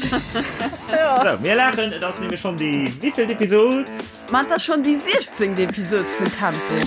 Sou, mir laachen, et ass nämlech schonn déi wéivielt Episod? Ma et ass schonn déi 16. Episod vun Tempo.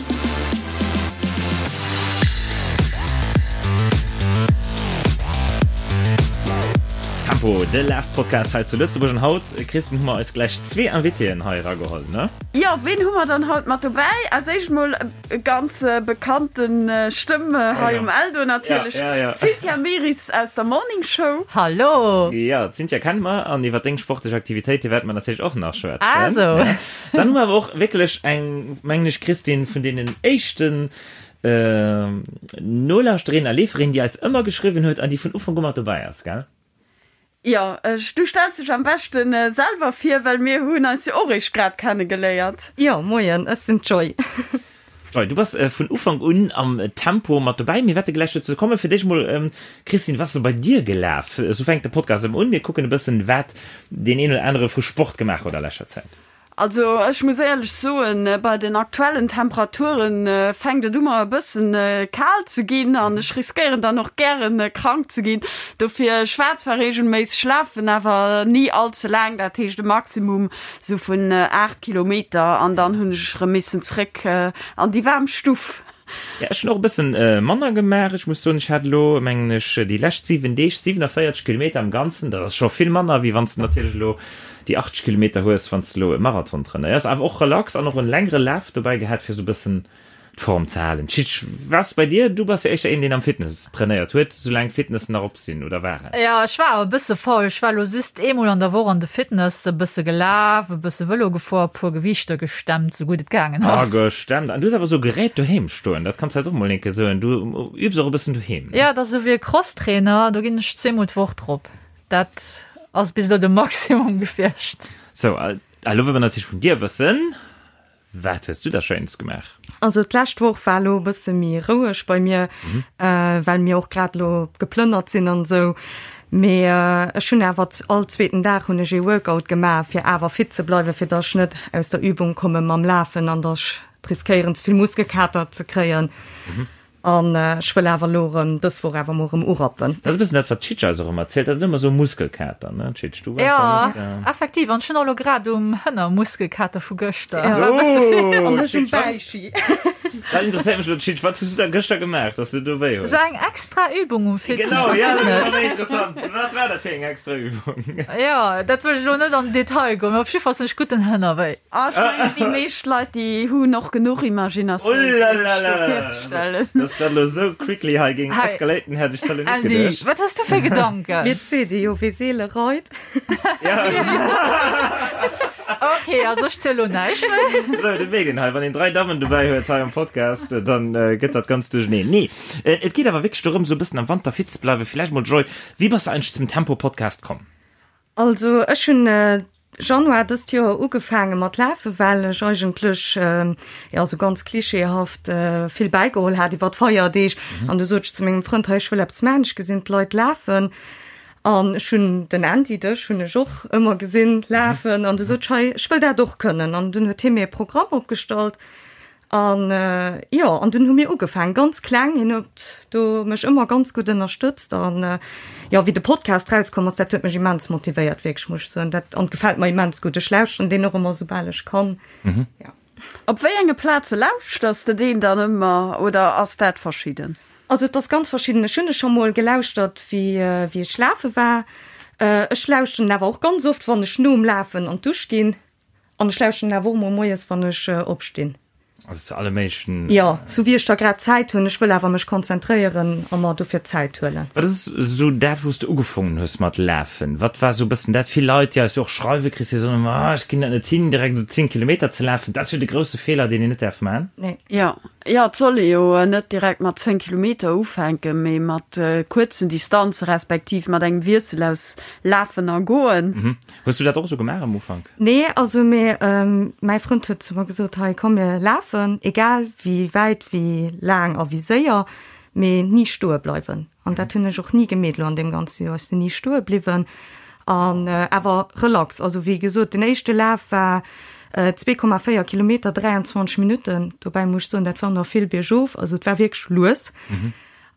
Tempo, de Laf-Podcast hei zu Lëtzebuerg. An haut, Christine, hu mer eis gläich zwee Invitéen hei erageholl, ne? Jo, ween hu mer dann haut mat dobäi? Als éischt mol e ganz bekannten Stëmm hei um Eldo natierlech, d'Cynthia Meris aus der Morning Show. Hallo! Jo, d'Cynthia kenne mer an iwwer deng sportlech Aktivitéite wäerte mer natierlech och nach schwätzen. Ah sou. Dann hu mer awer och wierklech eng, mengen ech, Christine, vun deenen éischten Nolauschterinnen a Leeferinnen, déi eis ëmmer geschriwwen huet an déi vun Ufank u mat dobäi ass, gell? Jo, du stells dech am beschten selwer vir, well mir hunn eis jo och eréischt grad kenne geléiert. Jo, moien, ech sinn d'Joy. Joy, du bass vun Ufank un am Tempo mat dobäi. Mir wäerte gläich dozou kommen. Fir d'éischt mol, Christine, wat ass sou bei dir gelaf? Esou fänkt de Podcast ëmmer un. Mir kucken e bëssen, wat deen een oder anere vu Sport gemaach huet a leschter Zäit. Also ech muss éierlech soen, bei den aktuellen Temperaturen fänkt et u mer e bëssen kal ze ginn an ech riskéieren dann och gären krank ze ginn. Dofir, ech war zwar reegelméisseg lafen, awer ni all ze laang, dat heescht e Maximum sou vun 8 Kilometer an dann hunn ech erëm missen zréck an déi waarm Stuff. Ja, ech hunn och e bëssen manner gemaach. Ech muss soen, ech hat elo, mengen ech, déi lescht 7 Deeg 47 Kilometer am Ganzen. Dat ass scho vill manner, wéi wann s de natierlech elo déi 80 Kilometer hues, wann s de elo e Marathon trainéiers. Awer och relax an och en längere Laf dobäi gehat, fir esou e bëssen d'Form ze halen. Tschitsch, was bei dir? Du bass jo éischter een, deen am Fitness trainéiert huet, soulaang d'Fitnessen nach op sinn oder waren. Jo, ech war awer e bësse faul. Ech war elo just eemol an der Woch an de Fitness, e bësse gelaf, e bësse Vëlo gefuer, e puer Gewiichter gestemmt, sou gutt et gaangen ass. Ah, gestemmt. An du hues awer sou Gerät doheem stoen, dat kanns du eis och mol eng Kéier soen. Du übs och e bëssen doheem, ne? Jo, dat ass esou wéi e Crosstrainer, do ginn ech zweemol d'Woch drop. Dat ass bis elo de Maximum gewiescht. Sou, a elo wëlle mer natierlech vun dir wëssen, Wat hues du da Schéines gemaach? Also d'lescht Woch war elo e bësse méi roueg bei mir, well mir och grad elo geplënnert sinn an esou. Mee ech hunn awer all zweeten Dag hunn ech ee Workout gemaach, fir awer fit ze bleiwen, fir datt ech net aus der Übung komme mam Lafen an datt ech riskéieren ze vill Muskelkater ze kréien. An ech wëll awer elo erëm dës Woch awer mol erëm urappen. Dat ass e bëssen dat, wat d'Chitsch eis och ëmmer erzielt, dat huet ëmmer esou Muskelkater, ne Chitsch? Du waars ja net, ja. Effektiv, an ech hunn och elo grad um Hënner Muskelkater vu gëschter. Ja. War e bësse vill. An ech um Bäichi. Dat interesséiert mech elo, Chitsch, wat hues du da gëschter gemaach, dass du do wéi hues? Esou eng extra Übung um Fitness. Genau, ja, dat ass méi interessant. Wat war dat fir eng extra Übung? Jo, dat wëll ech elo net an den Detail goen, mee op jiddwer Fall hunn ech gutt den Hënner wéi. Ah, ech mengen, déi meescht Leit, déi hunn och genuch Imaginatioun, fir sech do virzestellen. Dass dat elo esou quickly hei géing escalaten, hätt ech salo net geduecht. Andy, wat hues du fir Gedanken? Mir seet ee jo, wee seele reit. Ok, also ech ziel lo näischt méi. Esou, dat mierkt een hei, wann een 3 Dammen dobäi huet hei am Podcast, dann gëtt dat Ganzt duercheneen. Nee, et geet awer wierklech dorëm, esou e bëssen am Wanter fit ze bleiwen. Villäicht mol, Joy, wéi bass de eigentlech zum Tempo-Podcast komm? Also ech hunn Januar dëst Joer ugefaange mat lafe well ech eigentlech, jo sou ganz klischeehaft, vill bäigeholl hat iwwer d'Feierdeeg. An du sot ech zu mengem Frënd, hei ech wëll eppes maachen, ech gesinn d'Leit lafen. An ech hunn den Andy, dech hunn ech och ëmmer gesinn lafen. An du sot ech, hei ech wëll dat och kënnen. An dunn huet hie mir e Programm opgestallt. An jo, an dunn hu mir ugefaangen, ganz kleng. Hien huet do mech ëmmer ganz gutt ënnerstëtzt. An jo, wéi de Podcast rauskomm ass, dat huet mech immens motivéiert, wierklech, muss ech soen. Dat, an gefält mer immens gutt. Ech lauschteren deen och ëmmer, soubal ech kann. Jo. Op wéi enge Plaze lauschters de deen dann ëmmer oder ass dat verschidden? Also et ass ganz verschidden. Ech hunn e scho mol gelauschtert, wéi wéi ech lafe war. Ech lauschteren en awer och ganz oft, wann ech nom Lafen an d'Dusch ginn. An ech lauschteren awer och mol moies, wann ech opstinn. Also zu alle méiglechen. Jo, sou wéi ech da grad Zäit hunn. Ech wëll awer mech konzentréieren a mer dofir Zäit huelen. Wat ass esou dat, wou s de ugefongen hues mat lafen? Wat war esou e bëssen dat? Vill Leit, déi eis jo och schreiwen, Chris, déi soen ëmmer, ah, ech ginn dat net hin, direkt esou 10 Kilometer ze lafen. Dat ass jo de grousse Feeler, deen een net däerf man. Nee. Jo, jo, et soll ee jo net direkt mat 10 Kilometer ufänken, mee mat kuerzen Distanze respektiv mat engem Wiessel aus Lafen a Goen. Hues du dat och esou gemaach am Ufank? Nee, also mee mäi Frënd huet zu mer gesot, hei komm mir lafen, egal wéi wäit, wéi laang a wéi séier, mee ni stoe bleiwen. An dat hunn ech och ni gemeet elo an deem ganze Joer, ech sinn ni stoe bliwwen an awer relax. Also wéi gesot, den éischte Laf war 2,4 Kilometer, 23 Minutten, dobäi muss ech soen, dat war nach vill biergof, also et war wierklech lues.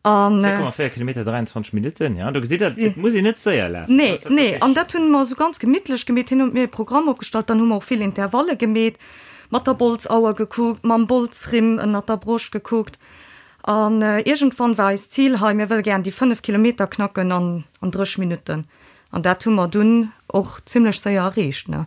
An 2,4 Kilometer 23 Minutten, ja, do gesitt Der, et muss een net séier lafen. Nee, nee, an dat hunn mer esou ganz gemittlech gemeet. Hien huet mir e Programm opgestallt, dann hu mer och vill Intervalle gemeet, mat der Bolzauer gekuckt, mam Bolzrimm ënnert der Broscht gekuckt. An iergendwann war eist Zil hei, mir wëlle gären déi 5 Kilometer knacken an an 30 Minutten. An dat hu mer dunn och zimlech séier erreecht, ne.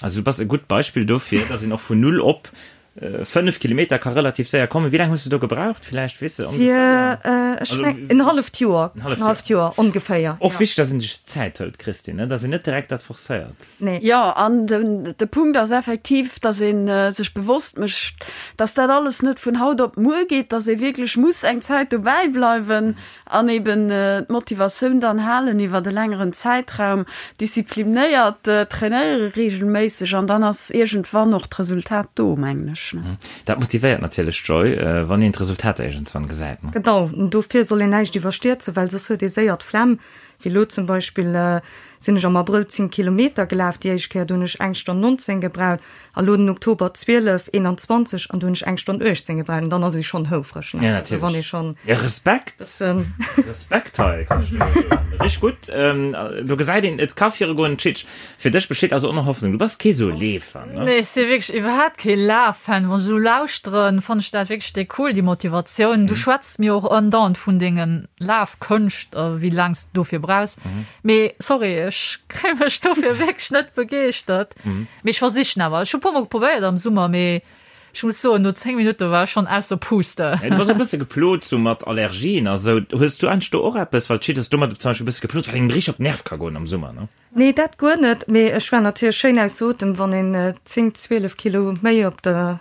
Also du bass e gutt Beispill dofir, dass een och vun null op 5 Kilometer ka relativ séier kommen. Wéi laang hues du do gebraucht? Villäicht weess de ongeféier? Fir, ech meng, en halleft Joer. En halleft Joer ongeféier. Och wichteg, dass een sech Zäit hëlt, Christine, ne? Dass een net direkt dat forcéiert. Nee. Jo, an den, de Punkt ass effektiv, dass ee sech bewosst mécht, dass dat alles net vun haut op muer geet, dass ee wierklech muss eng Zäit dobäi bleiwen An eben d'Motivatioun dann halen iwwert e längeren Zäitraum, disziplinéiert trainéiere reegelméisseg an dann ass iergendwann och d'Resultat do, mengen ech. Dat motivéiert natierlech, Joy, wann een d'Resultater iergendswann gesäit. Genau, dofir soll een näischt iwwerstierzen, well soss huet ee séier d'Flemm. Wéi elo zum Beispill sinn ech am Abrëll 10 Kilometer gelaf, déi éischt Kéier, do hunn ech eng Stonn 19 gebraucht. A lo den Oktober 12, 21 an do hunn ech eng Stonn 18 gebraucht an dann ass ee schonn houfreg, ne? Ja, natierlech. Wann ee schonn Ja, Respekt! bëssen. Respekt hei, kann ech nëmme soen. Richteg gutt. Do gesäit een, et ka virugoen. Tschitsch, fir dech besteet also och nach Hoffnung. Du bass kee sou Leefer, ne? Nee, ech si wierklech iwwerhaapt kee Laf-Fan. Wann ech esou lauschteren, fannen ech dat wierklech déi cool, déi Motivatioun. Du schwätz mir och andauernd vun denge Lafkënscht a wéi laang s de dofir brauchs. Mee sorry, ech kréie mech dofir wierklech net begeeschtert. Mee ech versichen awer. Ech hu puer mol probéiert am Summer, mee ech muss soen, no 10 Minutte war ech schonn aus der Puste. Du bass e bësse geplot sou mat Allergien a sou. Hues du eigentlech do och eppes? Well d'Schied ass domat zum Beispill e bësse geplot, wat engem richteg op d'Nerve ka goen am Summer, ne? Nee, dat guer net. Mee ech war natierlech schéin aus Otem. Wann een 10, 12 Kilo méi op de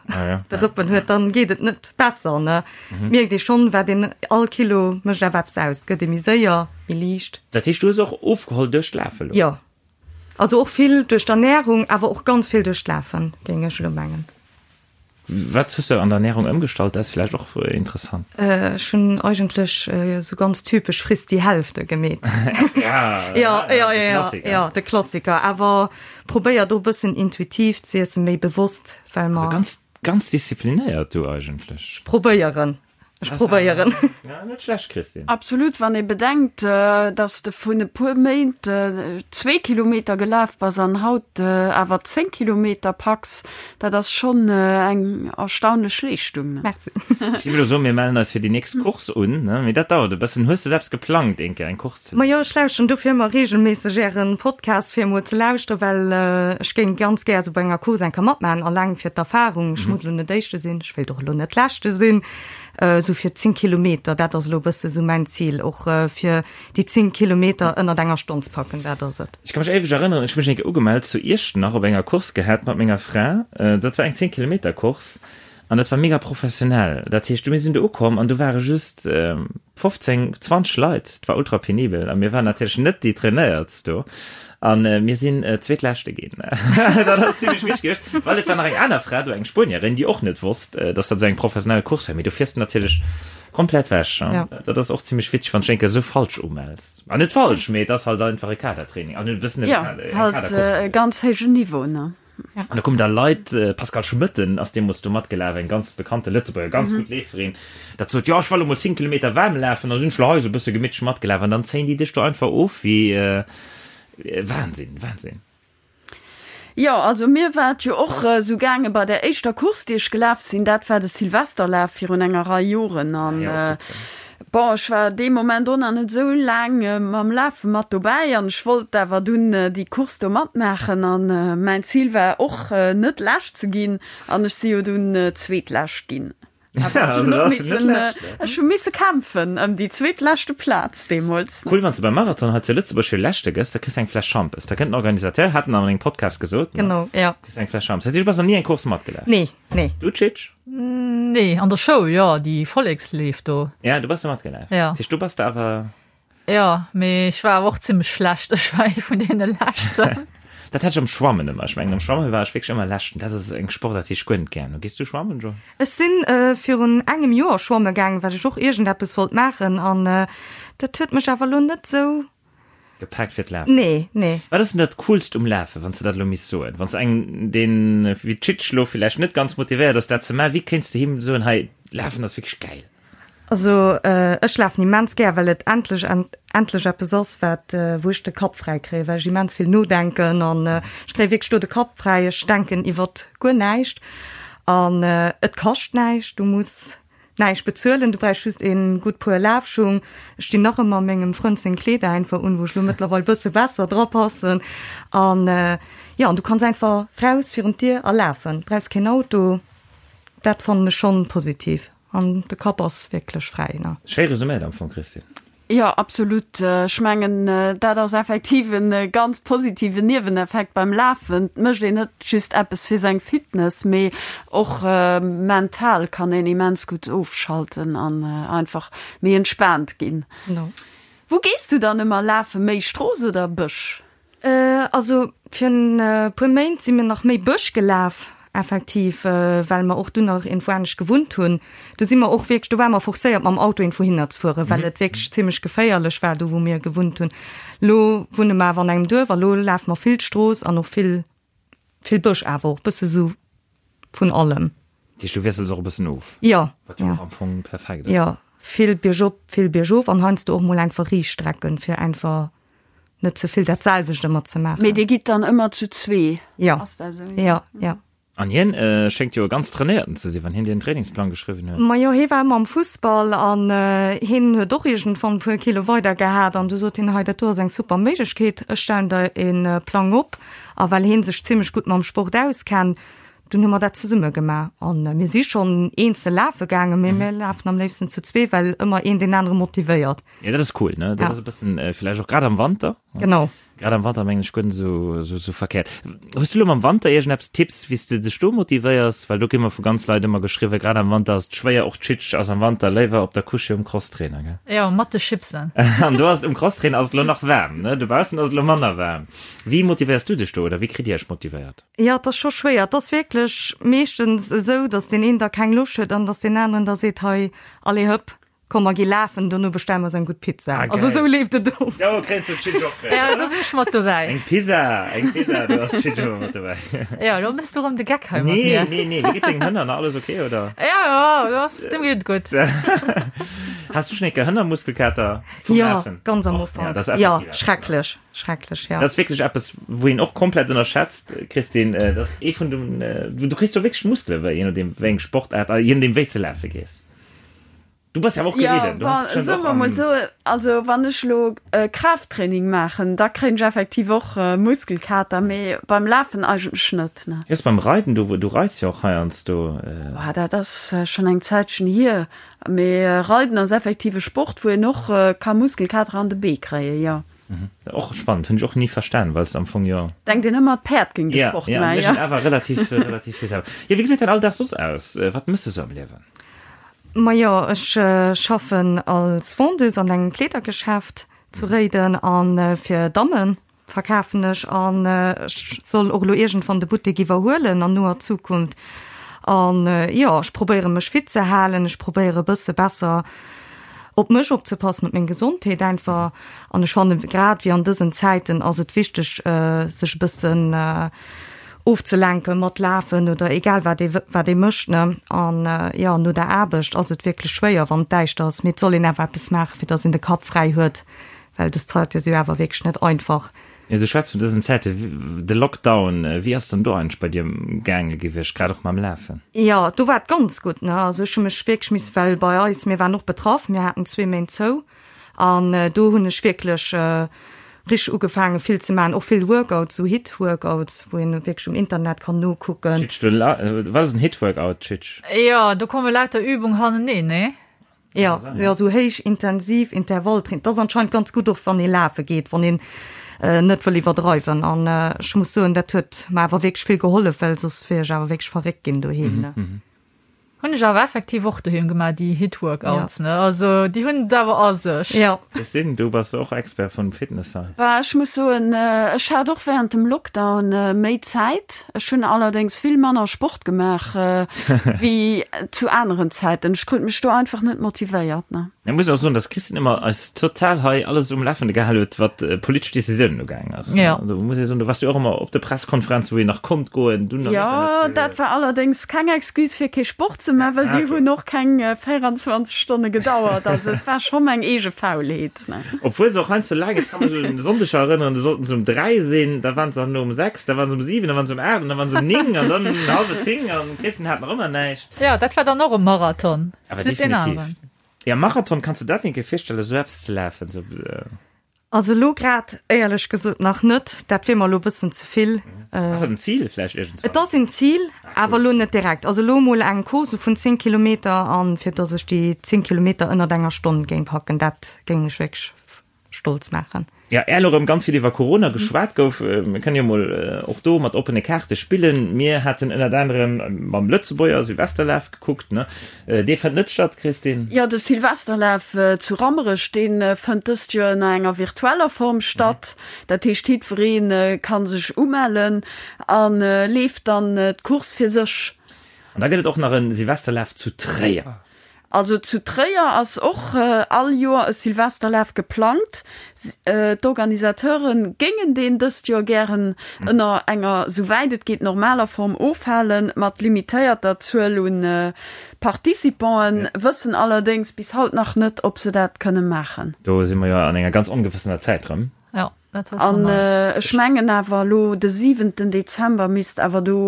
Rëppen huet, dann geet et net besser, ne? Mierkt ee schonn, wat een all Kilo mécht awer eppes aus. Et gëtt ee méi séier, méi liicht. Dat heescht, du hues och ofgeholl duerch d'Lafe lo? Jo. Also och vill duerch d'Ernährung, awer och ganz vill duerch d'Lafen, géing ech elo mengen. Wat hues de an der Ernährung ëmgestallt? Dat ass vläicht och interessant. Ech hunn eigentlech esou ganz typesch Friss die Hälfte gemeet. Ja, ja, ja, de Klassiker. Ja, de Klassiker. Awer probéier do e bëssen intuitiv z'iessen, méi bewosst, well mer. Also ganz, ganz disziplinéiert du eigentlech. Ech probéieren. Ech probéieren. Ja, net schlecht, Christine. Absolut, wann ee bedenkt, dass de vun e puer Méint zwee Kilometer gelaf bass an haut awer 10 Kilometer packs, dat ass schonn eng erstaunlech Leeschtung. Merci. Ech géif elo soen, mir mellen eis fir déi nächst Course un, ne? Mee dat dauert e bëssen. Hues de eppes geplangt, eng Kéier eng Course ze. Majo, ech lauschteren dofir ëmmer reegelméisseg Ären Podcast, fir emol ze lauschteren, well ech géing ganz gär esou bei enger Course eng Kéier matmaachen, alleng fir d'Erfahrung. Ech muss elo net Éischte sinn, ech wéilt och elo net Leschte sinn, esou fir 10 Kilometer, dat ass elo e bësse esou mäin Zil, och fir déi 10 Kilometer ënnert enger Stonn ze packen, dat ass et. Ech ka mech éiweg erënneren, ech hu mech eng Kéier ugemellt zu Iechternach op enger Course gehat mat menger Fra, dat war eng 10 Kilometer Course An dat war mega professionell. Dat heescht, mir sinn do ukomm an do ware just 15, 20 Leit. Et war ultra penibel a mir waren natierlech net déi Trainéiertst do. A mir sinn Zweetleschte ginn. Dat ass zimmlech wichteg gewiescht, well et war nach eng aner Fra do, eng Spuenierin, déi och net wosst, dass dat esou eng professionell Course wär. Mee do fiers de natierlech komplett wech. Dat ass och zimmlech witzeg, wann s de eng Kéier esou falsch umells. An net falsch, mee et ass halt einfach e Kadertraining an e bëssen e Kadercourse. Jo, halt e ganz héijen Niveau, ne? An da kommen da Leit, Pascale Schmëtten ass deemools do matgelaf, eng ganz bekannte Lëtzebuerger, ganz gutt Leeferin, dat sot, jo ech well elo mol 10 Kilometer waarm lafen, da sinn ech lo hei esou e bësse gemittlech matgelaf an dann zéien déi dech do einfach of wéi Wahnsinn, Wahnsinn. Jo, also mir war et jo och esou gaange bei der éischter Course, déi ech gelaf sinn, dat war de Silvesterlaf virun enger Rei Joren an Bon, ech war dee Moment och nach net esou laang mam Lafe mat dobäi an ech wollt awer dunn déi Course do matmaachen an mäin Zil war och net Lescht ze ginn an ech si jo dunn Zweetlescht ginn. Awer ech hunn och missen, ech hu misse kämpfen ëm déi zweetleschte Plaz deemools. Cool, wann s de beim Marathon hei zu Lëtzebuerg fir Leschte gëss, da kriss de eng Fläsch Schampes. Da kënnt den Organisateur, hat en an engem Podcast gesot, ne? Genau, jo. Kriss eng Fläsch Schampes. Dat heescht, du bass nach ni eng Course matgelaf? Nee, nee. Du, Tschitsch? Nee, an der Schoul, jo, déi Volleksleef do. Ja, du bass do matgelaf. Ja. Dat heescht, du bass da awer. Ja, mee ech war awer och zimmlech schlecht. Ech war ee vun deene Leschten. Dat hat ech am Schwammen ëmmer. Ech mengen, am Schwammen war ech wierklech ëmmer Leschten. Dat ass eng Sportaart, déi ech guer net gären hunn. Gees du schwammen, Jo? Ech sinn virun engem Joer schwamme gaangen, well ech och iergendeppes wollt maachen an dat huet mech awer elo net esou. Gepaakt fir d'Lafen? Nee, nee. Wat ass denn dat Coolst um Lafen, wann s de dat elo misst soen? Wann s engem, deen wéi d'Chitsch elo villäicht net ganz motivéiert ass, dat ze maachen, wéi kéints de him soen, hei, Lafen ass wierklech gäil? Also ech lafen immens gär, well et endlech endlech eppes ass, wat wou ech de Kapp fräi kréien, well ech immens vill nodenken an ech kréie wierklech do de Kapp fräi. Ech denken iwwert guer näischt an et kascht näischt, du muss näischt bezuelen, du brauchs just ee gutt Puer Lafschung. Ech dinn nach ëmmer mengem Frënd seng Kleeder einfach un, wou ech lo mëttlerweil bësse besser dra passen an jo, an du kanns einfach raus virun d'Dier a lafen, brauchs keen Auto. Dat fannen ech schonn positiv. An de Kapp ass wierklech fräi, ne? Schéi resuméiert am Fong, Christine. Jo, absolut. Ech mengen, dat ass effektiv e ganz positiven Nieweneffekt beim Lafen. Et mécht een net just eppes fir seng Fitness, mee och mental kann een immens gutt ofschalten an einfach méi entspaant ginn. Wou gees du dann ëmmer lafen, méi Strooss oder Bësch? Also fir en puer Méint si mir nach méi Bësch gelaf, effektiv, well mer och dunn nach iergendwou anescht gewunnt hunn. Do si mer och wierklech, do ware mer forcéiert mam Auto iergendwou hinner ze fueren, well et wierklech zimmlech geféierlech war do wou mir gewunnt hunn. Lo wunne mer awer an engem Duerf a lo lafe mer vill d'Strooss an och vill, vill Bësch awer och, bësse sou vun allem. Dat heescht, du wiessels och e bëssen of? Jo. Wat jo och am Fong perfekt ass. Jo, vill biergop, vill biergof an heiansdo och mol einfach riicht Strecken, fir einfach net ze vill dat selwecht ëmmer ze maachen. Mee dir gitt dann ëmmer zu zwee? Jo. Ass dat esou? Jo, jo. An hien schéngt jo e ganz trainéierten ze sinn, wann hien dir en Trainingsplang geschriwwen huet. Majo, hie war ëmmer am Fussball an hien huet och iergendwann e puer Kilo weider gehat an du sot hien, hei dat do ass eng super Méiglechkeet, ech stellen der e Plang op. A well hie sech zimmlech gutt mam Sport auskennt, dunn hu mer dat zesumme gemaach an mir si schonn eenzel lafe gaangen, mee mir lafen am léifsten zu zwee, well ëmmer een deen anere motivéiert. Ja, dat ass cool, ne? Dat ass e bëssen villäicht och grad am Wanter. Genau. Grad am Wanter mengen ech guer net esou, esou, esou verkehrt. Hues du lo mam Wanter iergendeppes Tipps, wéi s de dech do motivéiers? Well do kritt mer vu ganz Leit ëmmer geschriwwen, grad am Wanter ass et schwéier, och d'Chitsch ass am Wanter léiwer op der Couche um Crosstrainer, gell? Jo, mat de Chipsen. An do ass et um Crosstrainer ass et lo nach waarm, ne? Dobaussen ass et lo manner waarm. Wéi motivéiers du dech do oder wéi kritt dir iech motivéiert? Jo, et ass scho schwéier. Et ass wierklech meeschtens esou, datt deen een da keng Loscht huet an datt deen aneren da seet, hei, allez hëpp, Komm mer gi lafen, dono bestelle mer eis eng gutt Pizza. Ah, Also geil. esou leeft et of. Do kréins de d'Chitsch och kréien, Ja, oder? do sinn ech mat dobäi. Eng Pizza, eng Pizza, do ass d'Chitsch ëmmer mat dobäi. Ja, lo mëss du rëm de Geck hei mat Nee, mir. nee, nee, wéi geet dengem Hënner nach? Alles ok, oder? Ja, ja, das, dem geet et gutt. Has du schon eng Kéier Hënnermuskelkater vum Ja, Lafen? ganz am Och, ja, Ufank. dat ass Ja, effektiv eppes, ne? schrecklech, schrecklech, ja. Dat ass wierklech eppes, wou een och komplett ënnerschätzt, Christine. Dat ass ee vun den, du kriss do wierklech Muskele wéi, je nodeem wéi eng Sportaart a je nodeem wéi s de lafe gees. Du bass ja awer och geriden. Ja, soe mer mol sou, also wann ech lo Kraafttraining maachen, da kréien ech effektiv och Muskelkater, mee beim Lafen eigentlech net, ne. Just beim Reiden, du, du reits jo och heiansdo. Boah, dat ass schonn eng Zäitchen hier, mee Reiden ass effektiv e Sport, wou een och ka Muskelkater an de Bee kréien, jo. Och spannend, hunn ech och ni verstan, well s am Fong jo. Denkt een ëmmer, d'Päerd géing de Sport maachen. Ja, ja, awer relativ, relativ vill selwer. Jo, wéi gesäit däin Alldag soss aus? Wat mëss de sou am Liewen? Majo, ech schaffen als Vendeuse an engem Kleedergeschäft zu Réiden a fir Damme verkafen ech an ech soll och elo iergendwann de Buttek iwwerhuelen an noer Zukunft. An jo, ech probéiere mech fit ze halen, ech probéiere e bësse besser op mech opzepassen, op meng Gesondheet einfach. An ech fanne grad wéi an dësen Zäiten ass et wichteg, sech e bëssen ofzelenken mat lafen oder egal wat ee wat ee mécht ne. An jo, no der Aarbecht ass et wierklech schwéier wann et däischter ass, mee et soll een awer eppes maachen, fir datt een de Kapp fräi huet, well dës Zäite si jo awer wierklech net einfach. Jo, du schwätz vun dësen Zäite, de Lockdown, wéi ass dann do eigentlech bei dir gaange gewiescht, grad och mam Lafen? Jo, do war et ganz gutt ne, also ech hu mech wierklech missen, well bei eis, mir waren och betraff, mir haten zwee Méint zou An do hunn ech wierklech richteg ugefaangen vill ze maachen, och vill Workouts, sou Hit-Workouts, wou een wierklech um Internet kann nokucken. Tschitsch, du la, wat ass en Hit-Workout, Tschitsch? Jo, do komme lauter Übung haneneen, nee? Jo, jo, sou héich intensiv Intervalltraining. Dat ass anscheinend ganz gutt, och wann ee lafe geet, wann een net wëll iwwerdreiwen. An ech muss soen, dat huet mer awer wierklech vill gehollef, well soss wier ech awer wierklech verréckt ginn doheem, ne. Hunn ech awer effektiv och doheem gemaach, déi Hit-Workouts, ne? Also déi hunn et awer a sech. Ja. Christine, du bass och Expert vum Fitness hei. Bah, ech muss soen, ech hat och während dem Lockdown méi Zäit. Ech hunn allerdéngs vill manner Sport gemaach wéi zu aneren Zäiten. Ech krut mech do einfach net motivéiert, ne? Ech muss och soen, dass d'Christine ëmmer eis total hei alles um Lafende gehal huet, wat politesch Decisiounen ugaangen ass. Ja. Also muss ee soen, du warst jo och ëmmer op de Presskonferenzen, wou een nach konnt goen, dunn Jo, dat war allerdéngs keng Excuse fir kee Sport ze. Courssen, mä well déi hunn och keng 24 Stonne gedauert. Also et war scho meng eege Faulheet. Obwuel se och heiansdo laang, ech ka mech un e Sonndeg erënneren, do sollten se um 3 sinn, da waren se dann um 6, da waren se um 7, da waren se um 8 an da waren se um 9 an dann hallwer 10 an d'Christine hat nach ëmmer näischt. Jo, dat war dann och e Marathon, Awer just een definitiv. aneren. Ja, Marathon, kanns de dat eng Kéier virstellen, esou eppes ze lafen? Esou, Also elo grad éierlech gesot nach net, dat wier mer elo e bëssen ze vill. Ass dat en Zil vläicht iergendswann? Et ass en Zil, awer elo net direkt. Also elo emol eng Course vun 10 Kilometer an fir datt ech déi 10 Kilometer ënnert enger Stonn géing packen, dat géing mech wierklech stolz maachen. Ja, är elo rëm ganz vill iwwer Corona geschwat gouf, mir kënnen jo mol och do mat oppene Kaarte spillen. Mir haten ënnert anerem mam Lëtzebuerger Silvesterlaf gekuckt, ne? Dee fënnt net statt, Christine? Jo, de Silvesterlaf zu Rammerech, dee fënnt dëst Joer ënner enger virtueller Form statt. Dat heescht, jiddweree ka sech umellen a leeft dann d'Course fir sech. An da gëtt et och nach e Silvesterlaf zu Tréier. Also zu Tréier ass och all Joer e Silvesterlaf geplangt. D'Organisateure géingen deen dëst Joer gären ënner enger, souwäit et geet, normaler Form ofhalen, mat limitéierter Zuel un Participanten, wëssen allerdéngs bis haut nach net, ob se dat kënne maachen. Do si mer jo an enger ganz ongewëssener Zäit rëm. Jo, dat wësse mer nach net. An ech mengen awer elo de siwenten Dezember misst awer do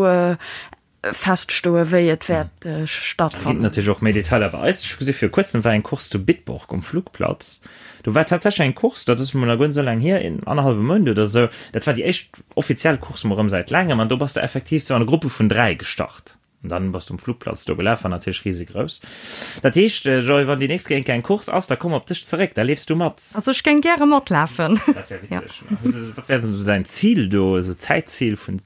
feststoen, wéi et wäert stattfannen. Ginn natierlech och méi Detailer bei eis. Ech hu gesi viru kuerzem war eng Course zu Bitburg um Flugplatz. Do war tatsächlech eng Course, dat ass mol nach guer net esou laang hier, een annerhallwe Mount oder esou. Dat war déi éischt offiziell Course mol erëm säit laangem an do bass de effektiv sou an Gruppe vun 3 gestart. An dann bass du um Flugplatz do gelaf, war natierlech risegrouss. Dat heescht, Joy, wann déi nächst Kéier eng Course ass, da komm op dech zeréck, da leefs du mat. Also ech géing gäre matlafen. Dat wär witzeg. Wat wär esou säin Zil do, esou Zäitzil vun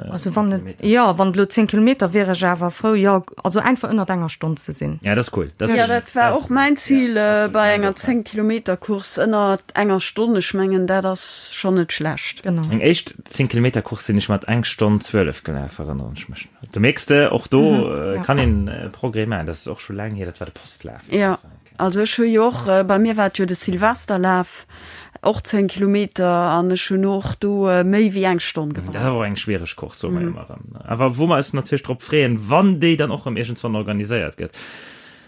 Also wann et, jo, wann et elo 10 Kilometer wier ech awer frou, jo, also einfach ënnert enger Stonn ze sinn. Ja, dat ass cool. Dat Ja, dat war och mäin Zil bei enger 10 Kilometer Course, ënnert enger Stonn. Ech mengen, dat ass schonn net schlecht. Genau. Meng éischt 10 Kilometer Course sinn ech mat eng Stonn 12 gelaf, erënneren ech mech. Do mierks de, och do kann een Progrès maachen. Dat ass och scho laang hier, dat war de Postlaf. Ja. Also ech hu jo och, bei mir war et jo de Silvesterlaf, och 10 Kilometer an ech hunn och do méi wéi eng Stonn gebraucht. Dat ass awer och eng schwiereg Course, soe mer jo ëmmer erëm. Awer wou mer eis natierlech drop freeën, wann déi dann och erëm iergendswann organiséiert gëtt.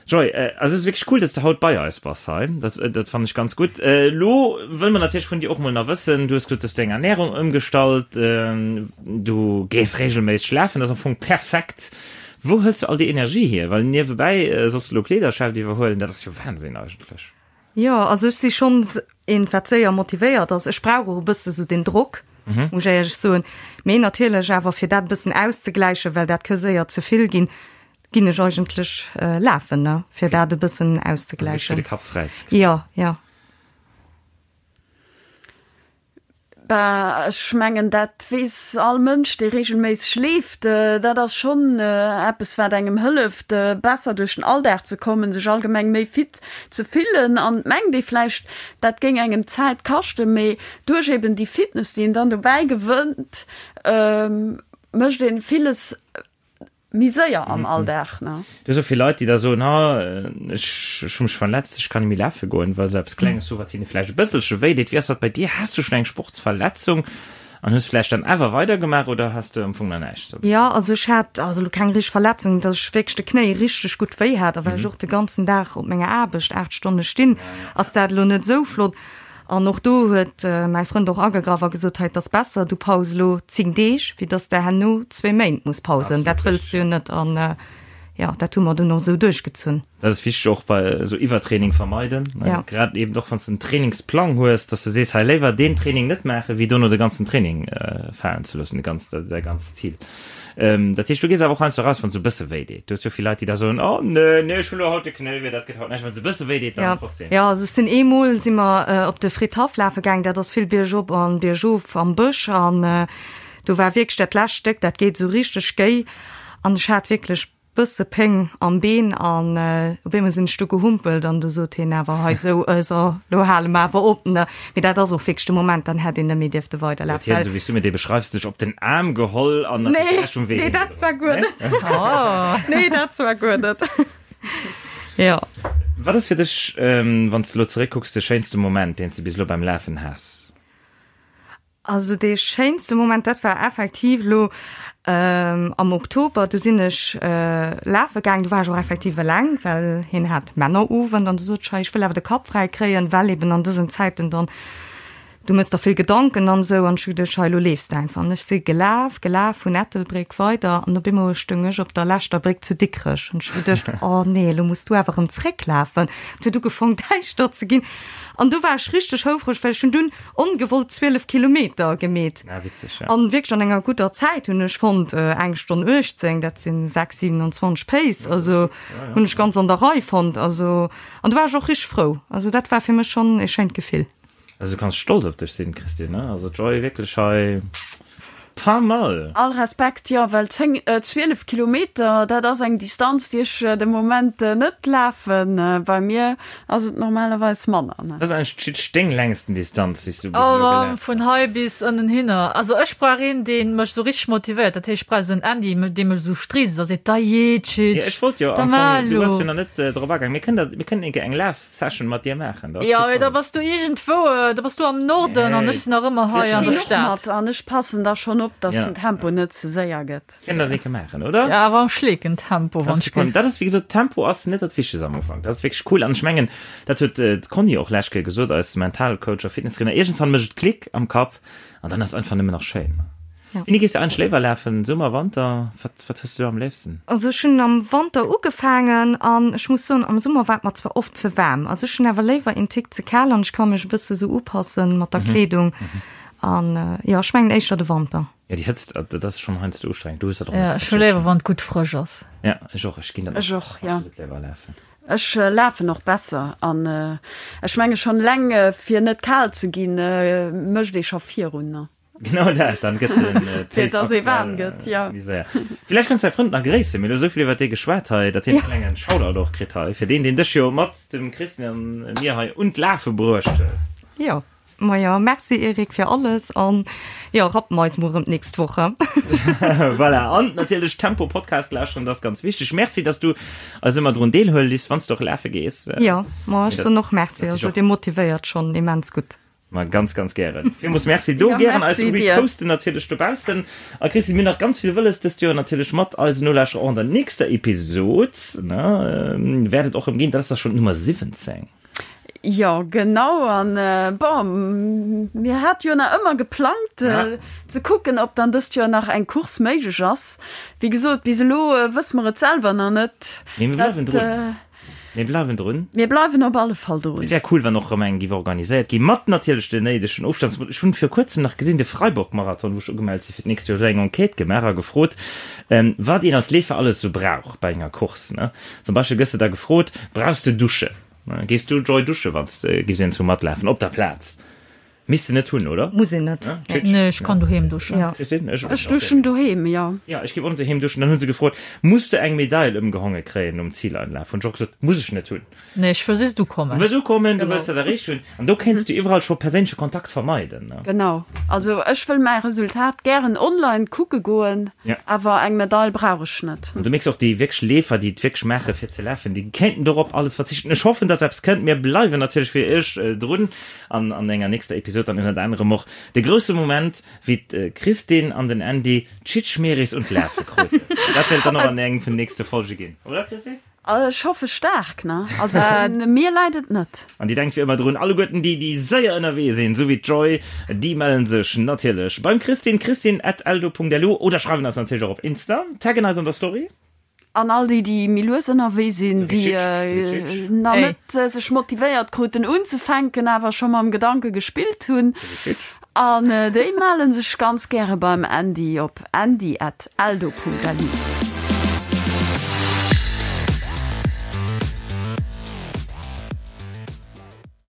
Joy, also et ass wierklech cool, dass de haut bei eis bass hei. Dat, dat fannen ech ganz gutt. Elo wëlle mer natierlech vun dir och mol nach wëssen, du hues gesot, du hues deng Ernärung ëmgestallt, du gees regelméisseg lafen, dat ass am Fong perfekt. Wou hëls du all déi Energie hier? Well niewebäi solls du elo Kleederschäft iwwerhuelen, dat ass jo Wahnsinn eigentlech. Jo, also ech si schonns een, wat séier motivéiert ass. Ech brauch och e bësse sou den Drock, muss ech éierlech soen. Mee natierlech awer fir dat e bëssen auszegläichen, well dat ka séier ze vill ginn, ginn ech eigentlech lafen, ne, fir dat e bëssen auszegläichen. Also fir de Kapp fräi ze kréien. Jo, jo. Bah, ech mengen, dat weess all Mënsch, dee reegelméisseg leeft. Dat ass schonn eppes, wat engem hëlleft, besser duerch den Alldag ze kommen, sech allgemeng méi fit ze fillen. An et mengt ee vläicht, dat géing engem Zäit kaschten, mee duerch eben déi Fitness, déi een dann dobäi gewënnt, mécht ee villes Méi séier am Alldag, ne? Du hues och vill Leit, déi da soen, ha, ech hu mech verletzt, ech kann net méi lafe goen, well se eppes Klenges hu, wat hinne vläicht e bësselche wéi deet. Wéi ass dat bei dir? Has du schonn eng Sportsverletzung an hues vläicht dann awer weidergemaach oder has du am Fong nach näischt sou? Jo, also ech hat also elo keng richteg Verletzung, dass ech wierklech de Knéi richteg gutt wéi hat a well ech och de ganzen Dag op menger Aarbecht 8 Stonne stinn, ass dat elo net esou flott. An och do huet mäi Frënd och agegraff a gesot, hei, et ass besser, du paus elo 10 Deeg, wéi dass de herno zwee Méint muss pausen. Dat wëlls du jo net. An jo, dat hu mer dunn och esou duerchgezunn. Dat ass wichteg och bei esou Iwwertraining vermeiden, Ja. grad eben och wann s de en Trainingsplang hues, dass de sees, hei léiwer deen Training net maachen, wéi dono de ganzen Training falen ze loossen, de ganz, däi ganzt Zil. Dat heescht, du gees awer och heiansdo eraus, wann et sou e bësse wéi deet. Du hues jo vill Leit, déi da soen, Oh nee, nee, ech hunn elo haut de Knéi wéi, dat gëtt haut näischt. Wann et sou e bësse wéi deet, dann trotzdem. Jo, also ech sinn eemol si mer op de Fridhaff lafe gaang, dat ass vill biergop an biergof am Bësch an do war wierklech dat lescht Stéck, dat geet esou richteg géi an ech hat wierklech bësse Péng am Been an op eemol sinn ech du gehumpelt an du sot hien awer hei sou, so lo hale mer awer op ne. Mee dat ass och wierklech de Moment, dann hätt een net méi dierfte weiderlafen. Huet hien, sou wéi s du mir dee beschreifs, dech op den Aarm geholl an hat dech de Rescht vum Wee Nee, dat war guer net. Nee, dat war guer net. Jo. Wat ass fir dech, wann s de elo zeréckkucks, de schéinste Moment, deen s de bis elo beim Lafen has? Also dee schéinste Moment, dat war effektiv elo am Oktober. Du sinn ech lafe gaang, du war ech och effektiv eleng, well hien hat Männerowend an du sot ech, hei ech wëll awer de Kapp fräi kréien, well eben an dësen Zäiten dann, du mëss der vill Gedanken an esou an ech hu geduecht, hei elo leefs de einfach. An ech si gelaf, gelaf vun Ettelbréck weider an op eemol stoung ech op der leschter Bréck zu Dikrech an ech hu geduecht, oh nee, elo muss du awer erëm zrécklafen. Et huet ugefong däischter ze ginn an du war ech richteg houfreg, well ech hunn dunn Ongewollt 12 Kilometer gemeet. Ah, witzeg, ja. An wierklech an enger gudder Zäit hunn ech fonnt, eng Stonn 18, dat sinn 6,27 Pace, also hunn ech ganz an der Rei fonnt. Also, an do war ech och richteg frou. Also dat war fir mech schonn e schéint Gefill. Also du kanns stolz op dech sinn, Christine, ne? Also d'Joy wierklech hei pas mal. All Respekt, jo, well 10, 12 Kilometer, dat ass eng Distanz, déi ech de Moment net lafen. Bei mir Ass et normalerweis manner, ne? Dat ass eigentlech d'Titsch deng längsten Distanz, déi s du bis elo gelaf hues. Vun hei bis ënnen hinner. Also ech brauch een, dee mech esou richteg motivéiert. Dat heescht, ech brauch esou en Andy, dee mech esou striisst a seet, Da jee, Titsch, Jo, ech wollt jo da am mar Fong, du elo. bass jo nach net drop agaang. Mir kënnen dat, mir kënnen eng Kéier eng Laf-Session mat dir maachen, dat ass Jo, kee mee da Problem. bass du iergendwou, da bass du am Norden an Nee, ech sinn nach ëmmer hei Ech an der ginn och Stad. mat an ech passen da schonn op, dass Ja. den Tempo net ze séier gëtt. Kënnen dat eng Kéier maachen, oder? Ja, awer am Schleekentempo, wann ech géif. Dat ass, wéi gesot, Tempo ass net dat Wichtegst am Ufank. Dat ass wierklech cool. An ech mengen, dat huet d'Conny och lescht Kéier gesot, eis Mentalcoach a Fitnesstrainer, iergendswann mécht et Klick am Kapp an dann ass et einfach nëmmen nach schéin. Wéini gees de eigentlech léiwer lafen, Summer, Wanter? Wat, wat hues du do am léifsten? Also ech hunn am Wanter ugefaangen an ech muss soen, am Summer war et mer zwar oft ze waarm. Also ech hunn awer léiwer een Tick ze kal an ech ka mech e bësse sou upassen mat der Kleedung. An jo, ech mengen éischter de Wanter. Ja, déi Hëtzt, dat ass schonn heiansdo ustrengend. Du hues dat och Ja, ech hu léiwer, wann et gutt frësch ass. Ja, ech och. Ech ginn dann Ech och, ja. absolut léiwer lafen. Ech lafen och besser an ech menge schonn eleng fir net kal ze ginn, mécht ee scho virun, ne? Genau dat, dann gëtt den Fir Pace dass ee waarm aktuell gëtt, ja. méi séier. Villäicht kanns du däi Frënd nach gréissen. Mir hunn elo esou vill iwwer dee geschwat hei, datt hien e klengen Shoutout och kritt hei, fir deen, deen dech jo mat dem Christian a mir hei un d'Lafe bruecht huet. Jo. Majo, merci Eric fir alles an jo, rappen eis mol rëm d'nächst Woch. Voilà, an natierlech Tempo Podcast lauschteren, dat ass ganz wichteg. Merci, dass du eis ëmmer drun deelhuele liss, wann s du och lafe gees. Jo, ma ech soen och Merci, also dir motivéiert schonn immens gutt. Ma ganz, ganz gären. Villmools Merci do. Ja, Gären eis merci dir. reposten natierlech dobaussen. A Christine, mir hunn nach ganz vill wëlles dëst Joer natierlech mat eisen Nolauschterer och an der nächster Episod, ne, wäert et och rëm ginn. Dat ass da schonn d'Nummer 17. Jo, genau. An bon, mir hate jo nach ëmmer geplangt, ze kucken, ob dann dëst Joer nach eng Course méiglech ass. Wéi gesot, bis elo wësse mer et selwer nach net. Mee mir bleiwen drun. Mir bleiwen drun. Mir bleiwen op alle Fall drun. Et wär cool, wann och erëm eng géif organiséiert ginn, mat natierlech den néidegen Ofstands. Ech hunn vir kuerzem nach gesinn, de Freiburg-Marathon, wou ech ugemellt si fir d'nächst Joer, huet eng Enquête gemaach a gefrot, wat een als Leefer alles esou brauch bei enger Course. Zum Beispill gëss de da gefrot, Brauchs de Duschen? Gees du Joy dusche wanns de giffs een zu matlafen op der Plaz? Misst de net hunn, oder? Muss een net. Nee, ech kann doheem duschen. Ja. Christine? Ech, Ech duschen doheem, jo. Ja, ech giff och net doheem duschen. Dann hunn se gefrot, Muss de eng Medail ëmgehonge kréien nom Zileinlaf? Hunn ech och gesot, Muss ech net hunn. Nee, ech wëll just ukommen. Du wëlls ukommen, du wëlls dat erreecht hunn. An do kéints du iwwerall scho perséinleche Kontakt vermeiden, ne? Genau. Also ech wëll mäi Resultat gären online kucke goen. Ja. Awer eng Medail brauch ech net. An du mierks och, déi wierklech Leefer, déi et wierklech maache fir ze lafen, déi kéinten dorop alles verzichten. Ech hoffen, dass eppes kënnt. Mir bleiwen natierlech fir iech drun an an enger nächster Episod dann ënnert anerem och de grousse Moment, wéi d'Christine an den Andy d'Schitschmeris un d'Lafe kruten. Dat wäert et dann och an engem vun den nächste Folge ginn, oder Christine? Ech hoffe staark, ne? Also un mir läit et net. An Dir denkt wéi ëmmer drun, alleguerten déi, déi séier ënnerwee sinn, esou wéi d'Joy, déi mellen sech natierlech beim Christine, christine at eldo.lu oder schreiwen eis natierlech och op Insta, taggen eis an der Story. An all déi, déi méi lues ënnerwee sinn, Esou wéi déi d'Chitsch, esou wéi d'Chitsch. nach net sech motivéiert kruten unzefänken, awer scho mam Gedanke gespillt hunn, Esou wéi d'Chitsch. an déi mellen sech ganz gäre beim Andy op andy at eldo.lu.